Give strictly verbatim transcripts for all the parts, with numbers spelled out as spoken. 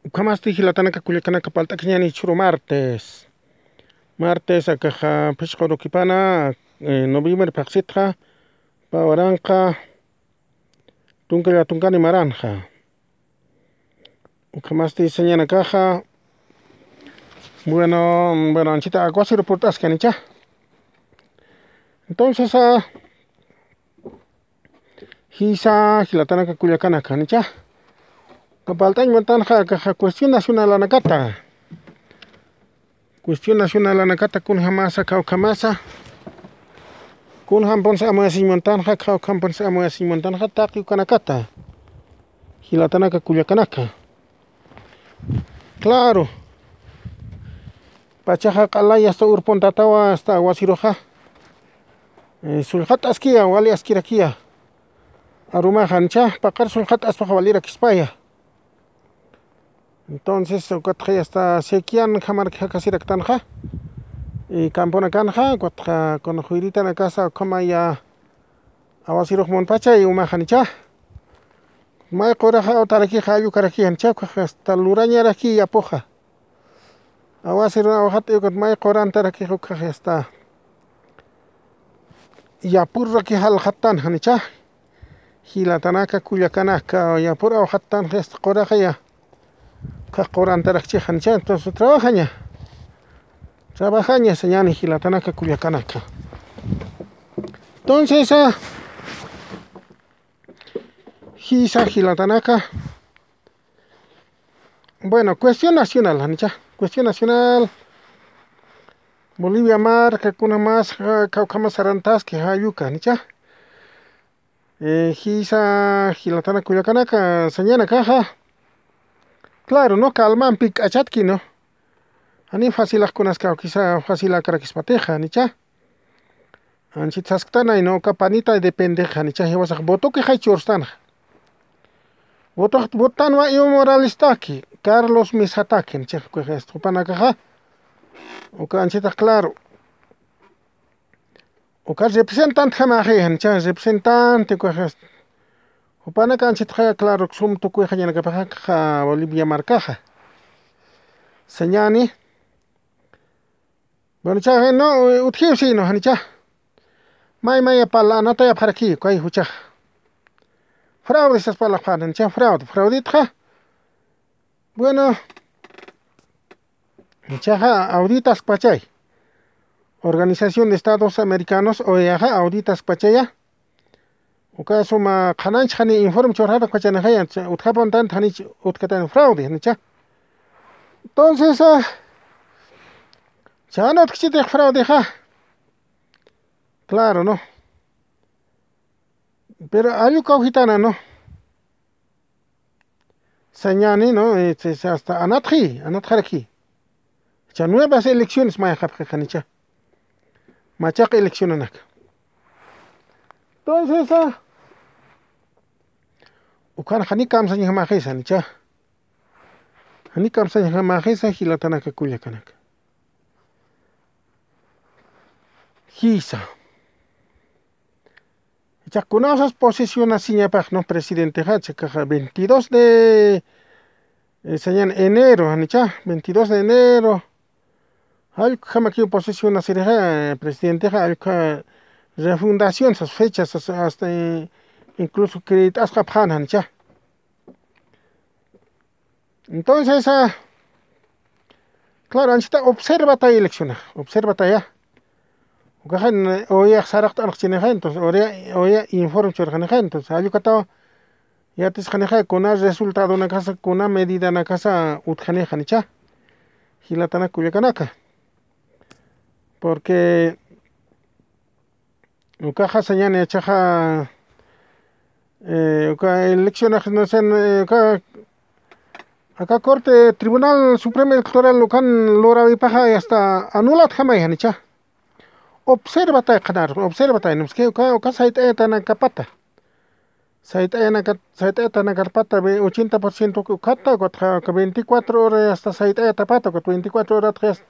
Ukhamasti jilatanaka kullakanaka, palt'akiñäni jichhüru martes. Martes akaxa phisqa urukipana, eh, noviembre phaxsitxa, pä waranqa tunka llatunkani maranxa. Ukhamasti sañanakaxa, bueno, bueno, anchita aguacero purt'askanicha. Entonces, ah, jisa jilatanaka kullakanaka, nicha. Kapalt'añ muntanxa akaxa cuestión nacionalanakata. Cuestión nacionalanakata, kunjamasa, kawkhamasa. Kunjampunsa amuyasiñ muntanxa, kawkhampunsa amuyasiñ muntanxa, taqi ukanakata. Jilatanaka kullakanaka. Claro. Pachaxa q'alay hasta urpuntatawa, hasta aguaceroxa. Eh, sullxat'askiya, wali askirakiya. Arumaxa, nicha, paqar sullxat'aspaxa walirakispaya. Entonces, ukatxa hasta sequian jamarki jakasiraktanxa. Y camponakanxa, ukatxa, kuna juyritanakasa, ukhamaya, aguacerux munpachay umaxa, nicha. May quraxa awtarakixa, allukarakixa, nicha, ukaxa hasta lurañaraki yapuxa. Aguacerun awxat, ukat may qurantaraki ukaxa hasta yapurraki jalxattanxa, nicha. Jilatanaka kullakanaka, yapur awxattanxa hasta quraxaya. Ukax qurantarakchixa, nicha. Entonces, trabajaña. Trabajaña, sañäni jilatanaka kullakanaka. Entonces, ah, jisa jilatanaka. Bueno, cuestión nacional, janicha. Cuestión nacional. Bolivia marka, kuna mas, ja, kawkhamas sarantaski, jayuka, janicha. Eh, jisa jilatana kullakanaka, sañanakaxa. Claro, ¿no? Calmampi k'achatki, ¿no? Jani facilax kunas kawkisa, facilakarakispatixa, janicha. Anchit sasktanay, ¿no? Uka panita depende, janicha, jiwasax votoki jay churstanxa. Voto, votanwa Evo Moralestaki, Carlos Mesataki, janicha, jupanakaxa. Uka anchitax claro. Uka representante jamaxi, janicha, representante, uka, jupanaka anchitxa, claro, sum tukuy jañanakapaxa, Bolivia markaxa. Sañani. Bueno, cha, no, utjiw sino, janicha. May, may, pala, anatayapxaraki, kay juchax. Fraude sas pala, janicha, fraude, fraudetxa. Bueno, chaxa auditaskpachay. Organización de Estados Americanos, O E A xa auditaskpachaya. Uka suma qhananch jani informe churxarakpachanixaya, utjapuntan jani utkatan fraude, janicha. Entonces, ah, chan utkchitix fraudexa. Claro, ¿no? Pero allu kawkitana, ¿no? Sañani, ¿no? Este, hasta anatxi, anatxaraki. Cha nuevas elecciones mayxapxi, janicha. Machaq eleccionanaka. Entonces, ah, ukan jani kamsañjamaxisa, janicha. Jani kamsañjamaxisa, jilatanaka kullakanaka. Jisa. Ichax kunasas posesionasiñapax, ¿no? Presidentexa, chakaxa veintidós de, eh, sañan enero, janicha, veintidós de enero. Allku jamakiw posesionasirixa, eh, presidentexa, allku refundación, sas fechas, sas, hasta, eh, incluso creet'asqapxan, janicha. Entonces, ah, claro, anchita observataya elecciona, observataya. Ukaxan, eh, O E A saraqt'anxchinixa, entonces, O E A, O E A informe churxanixa, entonces, allukataw yatisxanixa, kuna resultadonakasa, kuna medidanakasa utjanixa, janicha. Jilatanaka kullakanaka. Porque ukaxa sañani, chaxa, eh, uka eleccionax, no sé, eh, uka, aka Corte Tribunal Supremo Electoral ukan lurawipaxa, hasta anulatjamay, janicha. Observatay qhanar, observatay, ¿no? Es que uka, uka sayt'ayatanakapata. Sayt'ayanakat, sayt'ayatanakarpata, ve, ochenta por ciento ukhata, ukat ja, uka veinticuatro horas hasta sayt'ayatapata, ukat veinticuatro horas hasta,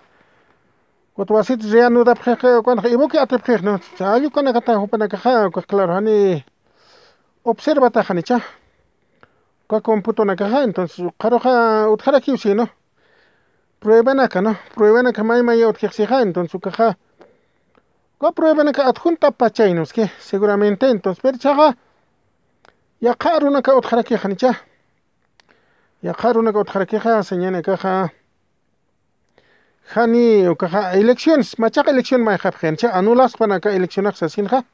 ukat wasit reanudapxix, ukan ibuki atipxix, ¿no? Allukanakata jupanakaxa, ukat claro, jani observataxa, janicha. uka computonakaxa, entonces, ukaruxa utjarakiw, sino pruebanaka, ¿no? Pruebanaka may maya utjixsixa, entonces, ukaxa, uka pruebanaka adjuntapachaynuski, seguramente, entonces, pero chaxa, yaqha arunaka utjarakixa, ¿janicha? Yaqha arunaka utjarakixa, señanakaxa, jani ukaxa elecciones, machaqa elección mayxapxi, ¿janicha? Anulaspanaka eleccionax sasinxa.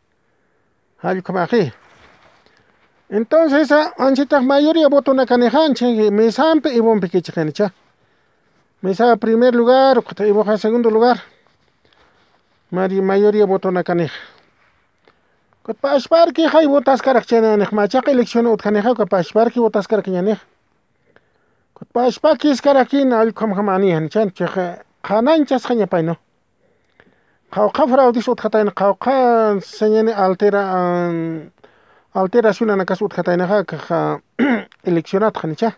Jallkamaxi. Entonces, a, anchitax mayoría votonakanixa, anchi mesampi Ivonpi kichixinicha. Mesa primer lugar, ukata Ivoxa segundo lugar. Mari mayoría votonakanixa. Kutpa ashparki jay votaskarak chananix, machaqa elección utjanixa, kutpa ashparki votaskarak ñanix. Kutpa ashpakiskarakina, allkhamjamani, ¿janicha? Chixa, qhananchasxañapaynu. Qhawqha fraudis utjatayna, qhawqha señani altera, an, alteracionanakas utjataynaxa, kaxa, eleccionatxa, ¿janicha?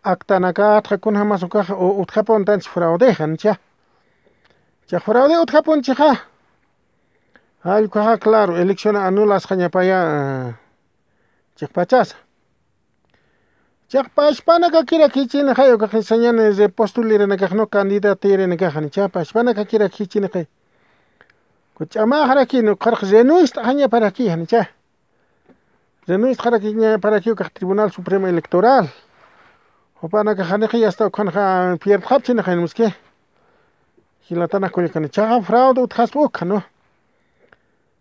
Actanakatxa kunjamas ukaxa, u, utjapuntanchi fraudexa, ¿janicha? Chixa fraude utjapunchixa. Allkhaxa, claro, elección anulasxañapaya, chiqpachasa. Chiqpachpanakakirakichini jay ukaxa sañani repostulirinakax, ¿no? Candidatirinakax, ¿janicha? Pachpanakakirakichini jay. Kuch'amaxarakini, ukxarx renuist'axañaparaki, ¿janicha? Renuist'axarakiñaparaki ukax Tribunal Supremo Electoral. Jupanakax janixa yasta ukhanxa pierdxapchini janimuski. Jilatanakullakani. Chaxa fraude utjaspa ukxa, ¿no?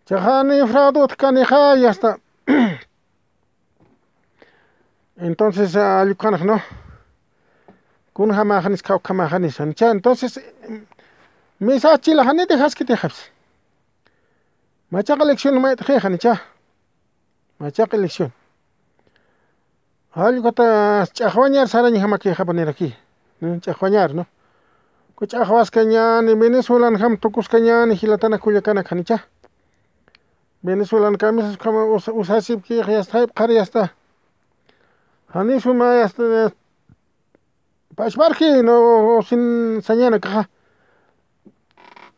Chaxa ni fraude utjkanixa yasta. Entonces, allkhanx, ¿no? Kunjamaxanis, khawkhamaxanis, ¿janicha? Entonces, misa chila jani dejaskitixapsi. Machaqa elección mayt'xi, ¿janicha? Machaqa elección. Jallkata ch'axwañar sarañjamakixapaniraki. ¿No? Ch'axwañar, ¿no? Kuch'axwaskañani, Venezuelanjam tukuskañani, jilatana kullakanak, ¿janicha? Venezuelan kamisas ukhama usa-, usasipki, yasta, jayp'xar yasta. Jani suma yasta, pachparki, ¿no? Sin sañanakaxa.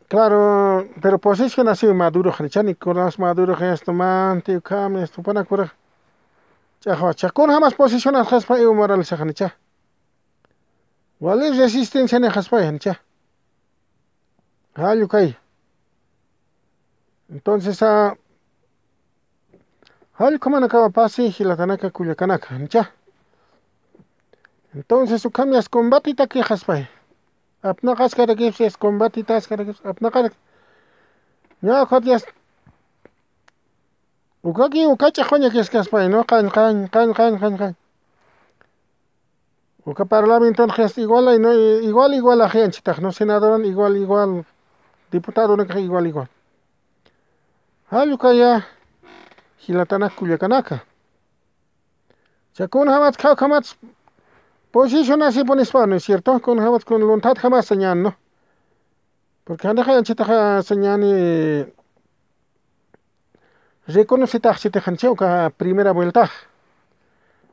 Claro, pero posición así Maduro, ¿janicha? Nicolás Maduro, yasta, manti, ukham, yasta, jupanakura. Ch'axwa, chakun jamas posición asxaspa Evo Morales, ¿janicha? Wali resistencia ni jaspa, ¿janicha? Jallukay. Entonces, a, jallukhamanakawa pasi, jilatanaka, kullakanaka, ¿janicha? Entonces, ukham yasta combatitaki jaspay. Apnaqaskarakipsi, yasta combatitaskarakipsi, apnaqarak. Ña, ukat yasta. Ukaki, uka ch'axwañakiskaspay, ¿no? Qañ, qañ, qañ, qañ, qañ, qañ. Uka parlamenton qhest igual, ay, ¿no? Igual, igual ajianchitax, ¿no? Senadoran igual, igual, diputadonakax igual, igual. Jallukaya, jilatanak kullakanaka. Cha, kunjamat, khawkhamat, posicionasipunispa, ¿no es cierto? Kunjamat, kun lunthat jamasa ñan, ¿no? Porque janixa anchitaxa sañani reconocitaxchitix, ¿janicha? Uka primera vueltax.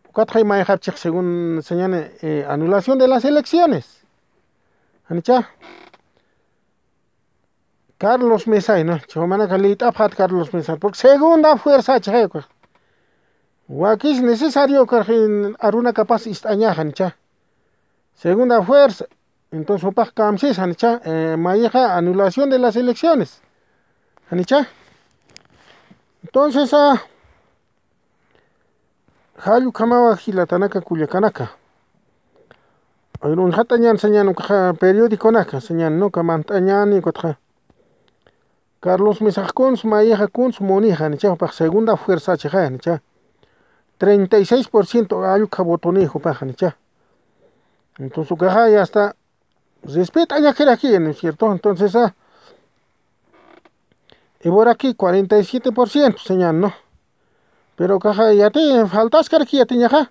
Ukatxay mayxapchix según sañani, eh, anulación de las elecciones. ¿Janicha? Carlos Mesa, ¿no? Chumanaka lït'apxat Carlos Mesa. Porque segunda fuerza chixay ukax. Wakis necesario ukax arunakapas ist'añaxa, ¿janicha? Segunda fuerza. Entonces, jupax kamsis, ¿janicha? Eh, mayixa anulación de las elecciones. ¿Janicha? Entonces, a, jallukhamawa jilatanaka kullakanaka. Ay, uñjatañan sañan ukaxa periodiconaka, sañan, ¿no? Uka mant'añani, ukatxa. Carlos Mesax kuns, mayixa kuns, munixa, ¿janicha? Jupax segunda fuerza chixa, ¿janicha? Treinta y seis por ciento allukha votoni jupaxa, ¿janicha? Entonces, ukaxa ya está, respet'añakiraki, ¿no es cierto? Entonces, a, Evoraki cuarenta y siete por ciento sañan, ¿no? Pero ukaxa yati faltaskaraki yatiñaxa.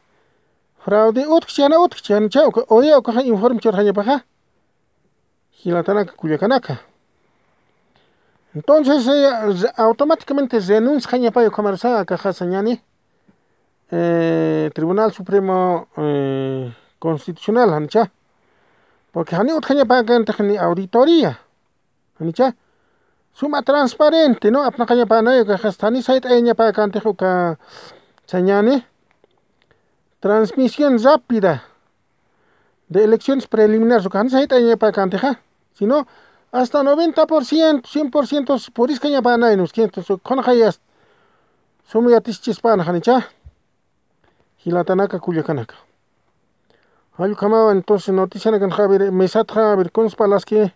Fraude utjchi, jana utjchi, ¿janicha? Uka, oye, ukaxa informe churxañapaxa. Jilatanaka, kullakanaka. Entonces, eh, re-, automáticamente renunciañapay ukhamarsa, akaxa sañani, eh, Tribunal Supremo, eh, Constitucional, ¿janicha? Porque jani utjañapäkantix ni auditoría, ¿janicha? Suma transparente, ¿no? Apnaqañapänay, ukaxa jani sayt'ayañapäkantix uka sañani. transmisión rápida de elecciones preliminares, uka janisa jayt'añapakantixa, sino hasta noventa por ciento, cien por ciento puriskañapanay, ¿no? Cientos, kunxayas, suma yatischispan janicha. Jilatanaka kullakanaka. Jallukamawa entonces noticianakan, a ver, mesatxa, a ver, kunspalaski,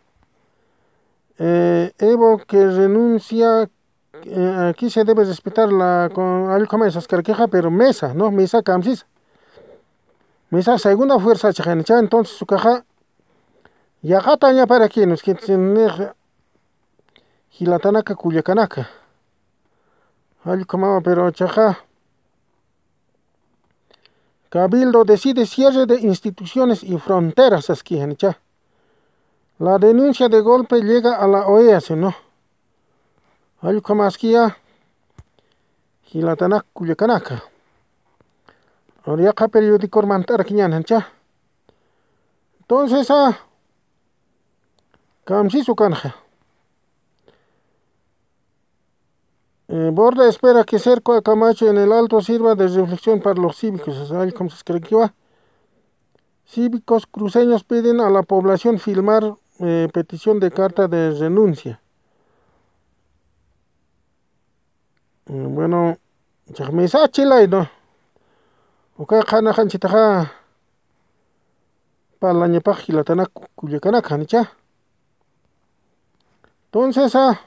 eh, Evo que renuncia, eh, aquí se debe respetar la, con, jallukamawa saskarakixa, pero mesa, ¿no? Mesa kamsis. Mesa segunda fuerza chajanicha, entonces ukaxa, yaqatañaparaki, ¿no? Es que, jilatanaka kullakanaka. Jallukamawa, pero chaja, Cabildo decide cierre de instituciones y fronteras, saski janicha. La denuncia de golpe llega a la OEA, ¿no? Jallukamaskiya, jilatanak kullakanaka. Ahora yaqha periodicor mant'arakiñan janicha. Entonces, ah, kamsis ukanxa. Eh, Borda espera que cerco a Camacho en el Alto sirva de reflexión para los cívicos. O sea, como se escribió, cívicos cruceños piden a la población firmar, eh, petición de carta de renuncia. Mm, bueno, chajmisa chilay, ¿no? Uka qhanaxanchitaxa parlañapax jilatanak kullakanaka, janicha. Entonces, ah,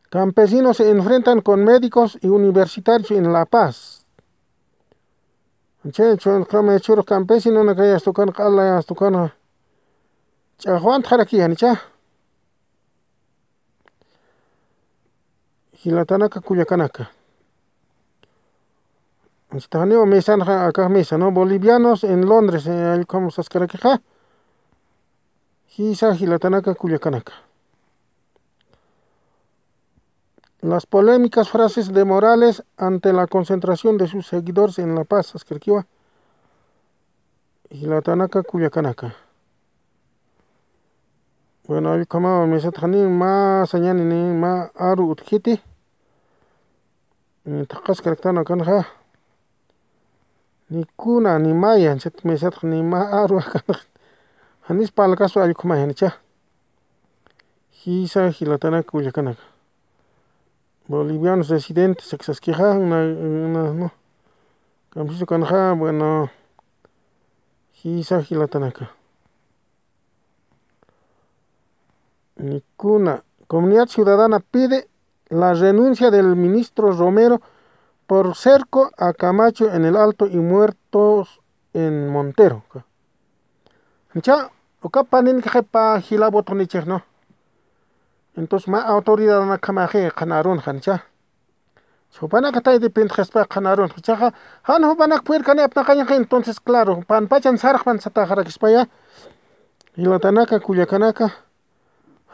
campesinos se enfrentan con médicos y universitarios en La Paz. Che, chunqama churux campesinonakay astukan, q'alay astukan, ch'axwantxaraki, janicha. Jilatanaka kullakanaka. Anchitaxaniwa mesanxa, akax mesa, ¿no? Bolivianos en Londres, eh, allqham saskarakixa. Jisa jilatanaka kullakanaka. Las polémicas frases de Morales ante la concentración de sus seguidores en La Paz, saskarakiwa. Jilatanaka kullakanaka. Bueno, allqhamawa mesatxani, mä sañani ni mä aru utjiti. Ni taqas karaktan akanxa. Ni kuna, ni maya, chat mesatxa ni mä aru akanxa. Janis palkasu allqhama janicha. Jisa jilatanaka kullakanaka. Bolivianos residentes, sakisaskixa, na, na, no. Kamsisu kanxa, bueno, jisa jilatanaka. Ni kuna. Comunidad Ciudadana pide la renuncia del ministro Romero por cerco a Camacho en el Alto y muertos en Montero. Cha, uka panin qhipa jila voto nichix, ¿no? Entonces, mä autoridad nakamaxi qhanarun jancha. Jupanaka tay dependxaspa qhanarun. Chaxa, jan jupanak puerkani apnaqañaxa, entonces, claro, panpachan sarxpan sataxarakispaya. Jilatanaka, kullakanaka,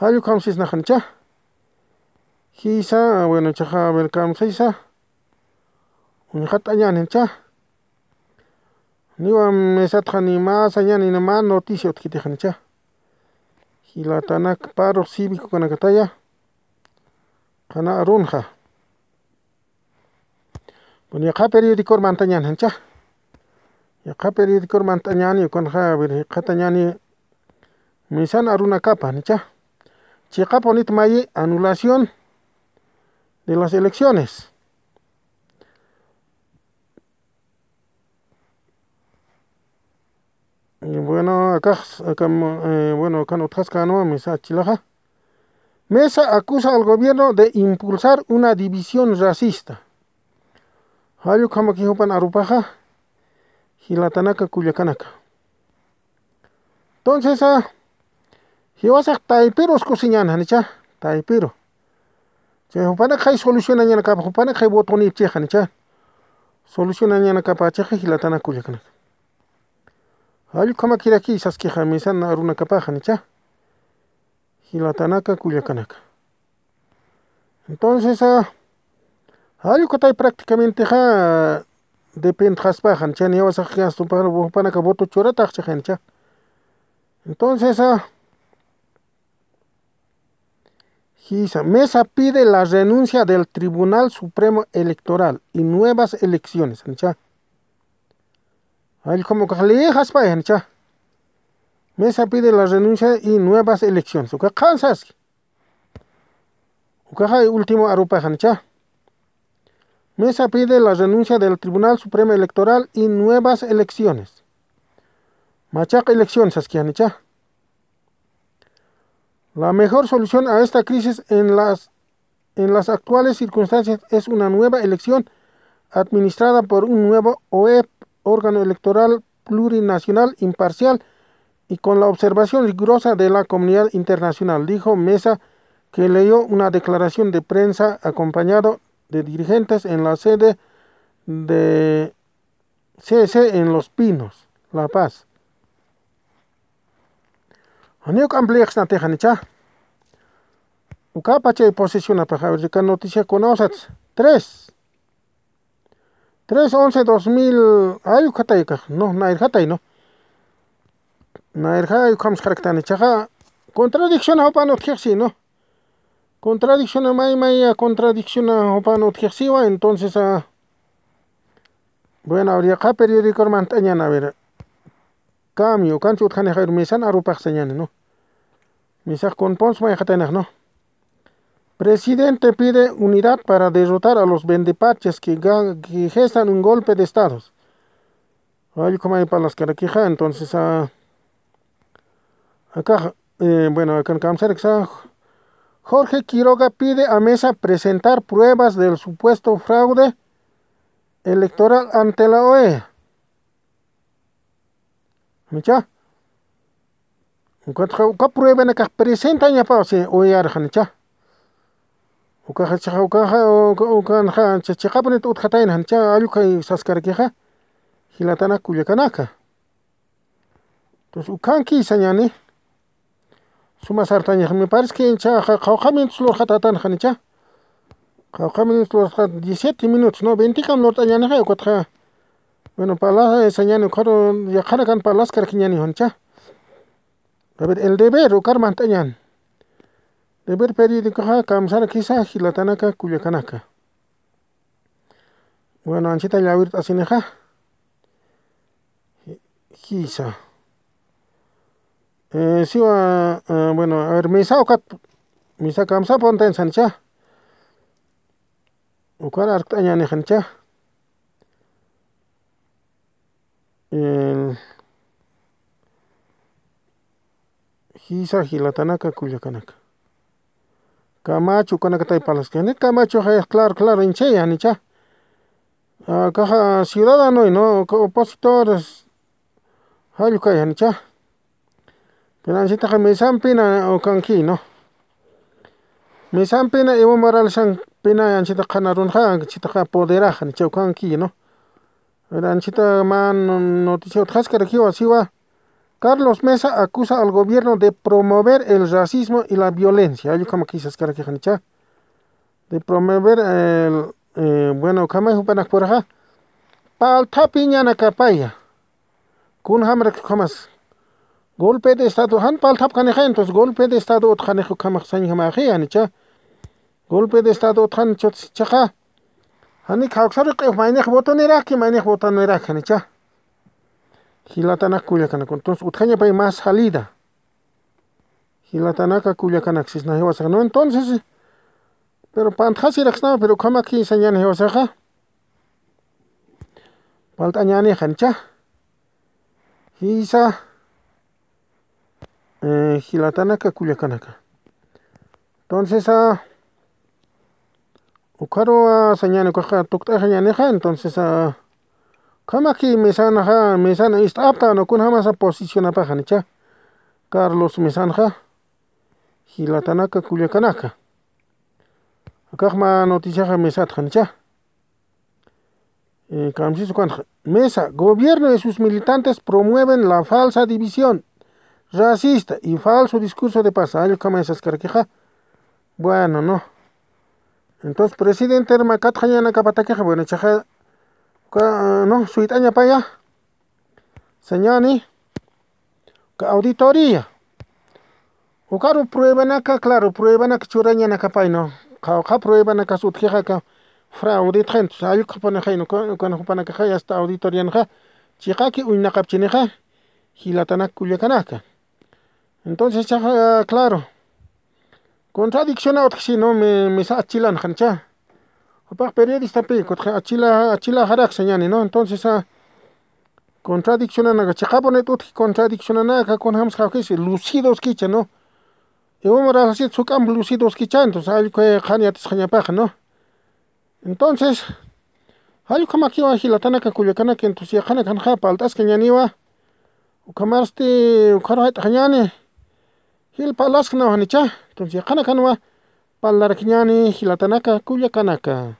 jallukhamsisnaxancha. Jisa, bueno, chaxa, a ver, kamsisa. Uñjat'añancha. Niwa mesatxa ni mä sañani ni mä noticia utjitixancha. Jilatanaka, paro cívico kanakataya. Qhana arunxa. Bueno, yaqha periodicor mantañan jancha. Yaqha periodicor mantañani, ukanxa, a ver, qhatañani, misan arunakapa, nicha. Chiqapunit mayi anulación de las elecciones. Y bueno, akax, akam, eh, bueno, akan utjaskänwa mesa chilaxa. Mesa acusa al gobierno de impulsar una división racista. Jallukhamaki jupan arupaxa, jilatanaka, kullakanaka. Entonces, ah, jiwasax taypiru uskusiñan janicha, taypiru. Chay jupanak jay solucionañanakapa, jupanak jay votonipchix janicha. Solucionañanakapa chixa, jilatanaka, kullakanaka. Jallukhamakiraki saskixa misan arunakapaxa, nicha. Jilatanaka, kullakanaka. Entonces, ah, jallukatay prácticamente ja dependxaspaxa, nicha, niyawasax jupanaka voto churataxchixa, nicha. Entonces, ah, Kisa, mesa pide la renuncia del Tribunal Supremo Electoral y nuevas elecciones, janicha. Allk'um ukax leejaspay, janicha. Mesa pide la renuncia y nuevas elecciones. Uka qhansaski. Ukaxa último arupax, janicha. Mesa pide la renuncia del Tribunal Supremo Electoral y nuevas elecciones. Machaq elecciones, saski, janicha. La mejor solución a esta crisis en las, en las actuales circunstancias es una nueva elección administrada por un nuevo O E P, órgano electoral plurinacional, imparcial y con la observación rigurosa de la comunidad internacional, dijo Mesa, que leyó una declaración de prensa acompañado de dirigentes en la sede de C S en Los Pinos, La Paz. Janiw ampliaxnatix, janicha. Ukapachay posicionapax, a ver, uka noticia kunawsats. Tres. Tres once dos mil, ay, ukataykax, no, nayrjatay, no. Nayrjay, ukham saraktanichaxa. Contradicción jupan utjixsi, no. Contradicción, may, may, contradicción jupan utjixsiwa, entonces, ah, bueno, ahora ya periódico, hermano, tañana, a ver. Cambio, ukanchi utjanixa, a ver, Mesan arupax sañani, ¿no? Mesax kunpons mayxataynax, ¿no? Presidente pide unidad para derrotar a los vendepaches que ga-, que gestan un golpe de estados. Ay, como hay palaskarakixa, entonces, ah, acá, eh, bueno, acá en Kamsar, que está, Jorge Quiroga pide a Mesa presentar pruebas del supuesto fraude electoral ante la O E A. ¿Janicha? Ukat, uka pruebanakax presentañapaw, si O E A arxa, janicha. Ukaxa, chiqa, ukaxa, uka, ukanxa, chi-, chiqapunit utjatayna, janicha, allukay saskarakixa, jilatanak kullakanaka. Entonces, ukanki sañani, suma sartañax, me parece que cha-, ja-, qawqha minutos lurxatätan, janicha. Qawqha minutos lurxat, diecisiete minutos, ¿no? Veintikam lurt'añänixa, ukatxa. Bueno, pala, eh, sañani, ukharu, yaqhanakan palaskarakiñäni, janicha. A ver, El Deber, ukar mantañäni. Deber periódicoxa, kamsarakisa, jilatanaka, kullakanaka. Bueno, anchita llawirt'asinixa. Jisa. Eh, siwa, eh, bueno, a ver, Mesa ukat, Mesa kamsapuntañ, janicha. Ukar arkt'añäni, janicha. El, jisa, jilatanaka, kullakanaka. Camacho, ukanakatay palaskani. Camacho, jay, claro, claro, inchaya, janicha. Ah, caja ciudadano, ¿no? Ca-, opositores, jallukay, janicha. Pero anchitaxa Mesampina ukanki, ¿no? Mesampina Evo Moralesampina anchita qhanarunxa, anchitaxa apoderaxa, janicha, ukanki, ¿no? Pero anchita mä noticia utjaskarakiwa, siwa. Carlos Mesa acusa al gobierno de promover el racismo y la violencia. Allukhamakisa saskarakixanicha. De promover el, eh, bueno, ukhamay jupanakpuraxa. Palthapiñanakapaya. Kunjamarak ukhamas. Golpe de estado, jan palthapkanixa, entonces golpe de estado utjanix ukhamax sañjamaxi, janicha. Golpe de estado utjan chutsi chiqa. Jani kawksaru q'if maynix votoniraki, maynix votoniraki, janicha. Jilatanak kullakanak. Entonces, utjañapay más salida. Jilatanaka kullakanak sisna jiwasaxa, ¿no? Entonces, pero pantxasiraksna, pero ukhamaki sañani jiwasaxa. Palt'añäni, janicha. Jisa. Eh, jilatanaka, kullakanaka. Entonces, ah, ukharu, ah, sañani, ukaxa tukt'axañänixa, entonces, ah, ukhamaki Mesanaxa, Mesana ist'apta, ¿no? Kunjamasa posicionapaxa, janicha. Carlos Mesanxa, jilatanaka, kullakanaka. Akax mä noticiaxa Mesatxa, janicha. Eh, kamsis ukanxa. Mesa, gobierno y sus militantes promueven la falsa división racista y falso discurso de paz. Allukhamay saskarakixa. Bueno, ¿no? Entonces, presidente, herma, katxañanakapatakixa, bueno, chiqa, uka, ¿no? Suyt'añapaya. Sañani, uka auditoría. Ukaru pruebanaka, claro, pruebanaka churañanakapayno. Qawqha pruebanakas utjixaka frauditxa, entonces allkhupanixayno, ukan jupanakaxa hasta auditorianxa chiqaki uñnaqapchinixa, jilatanak kullakanaka. Entonces chaxa, claro, contradicciona utjsino, misa achilanxancha. Jupax periodistapi kutxa achila achilaxaraksañani, ¿no? Entonces contradiccionanaka chiqapunit utji, contradiccionanaka kunjamsxawkisi lucidoskicha, ¿no? Iwamaraxasit suk'amp lucidoskicha, entonces allkhuy qhan yatisxañapaxa, ¿no? Entonces jallkhamakiwa jilatanaka kullakanaka, entonces yaqanakanxa palt'askañaniwa. Ukhamarsti ukharu jayt'axañani, jilpa alasknaw janicha. Entonces yaqanakanwa parlarakiñani jilatanaka kullakanaka.